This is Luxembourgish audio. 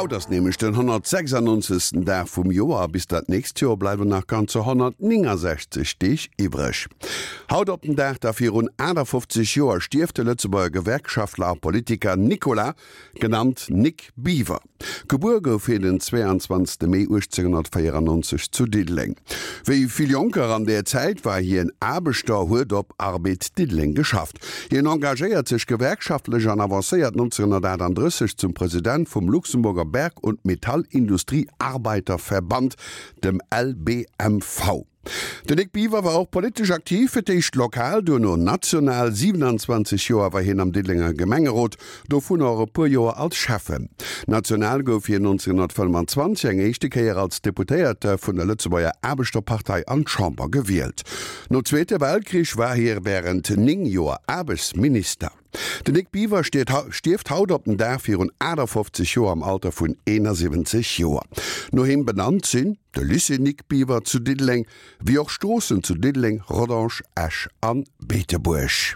Haut ass nämlech den 196. Dag vum Joer a bis dat nächst Joer bleiwen nach ganzer 169 Deeg iwwreg. Haut op den Dag da virun 58 Joer stierft de Lëtzebuerger Gewerkschaftler a Politiker Nicolas, genannt Nic Biver. Gebuer gouf hien den 22 Mee 1894 zu Diddeleng. Wéi vill Jonker an där Zäit war hien Aarbechter, huet op Arbed Diddeleng geschafft. Hien engagéiert sech gewerkschaftlech an avancéiert 1938 zum President vum Luxemburger Berg und Metallindustrie Arbeiterverband, dem LBMV. Den Nic Biver war och politesch aktiv, fir d'éischt lokal, duerno national. 27 Joer war hien am Diddelenger Gemengerot, dovunner och e puer Joer als Schäffen. National gouf hien 1925 eng éischte Kéier als Deputéierte vun der Lëtzebuerger Aarbechterpartei an d'Chamber gewielt. Nom Zweete Weltkrich war hie wärend 9 Joer Aarbechtsminister. Den Nic Biver stierft haut op den Dag virun 58 Joer am Alter vun 71 Joer. No him benannt sinn de Lycée Nic Biver zu Diddeleng, wéi och Stroossen zu Diddeleng, Rodange, Esch an Beetebuerg.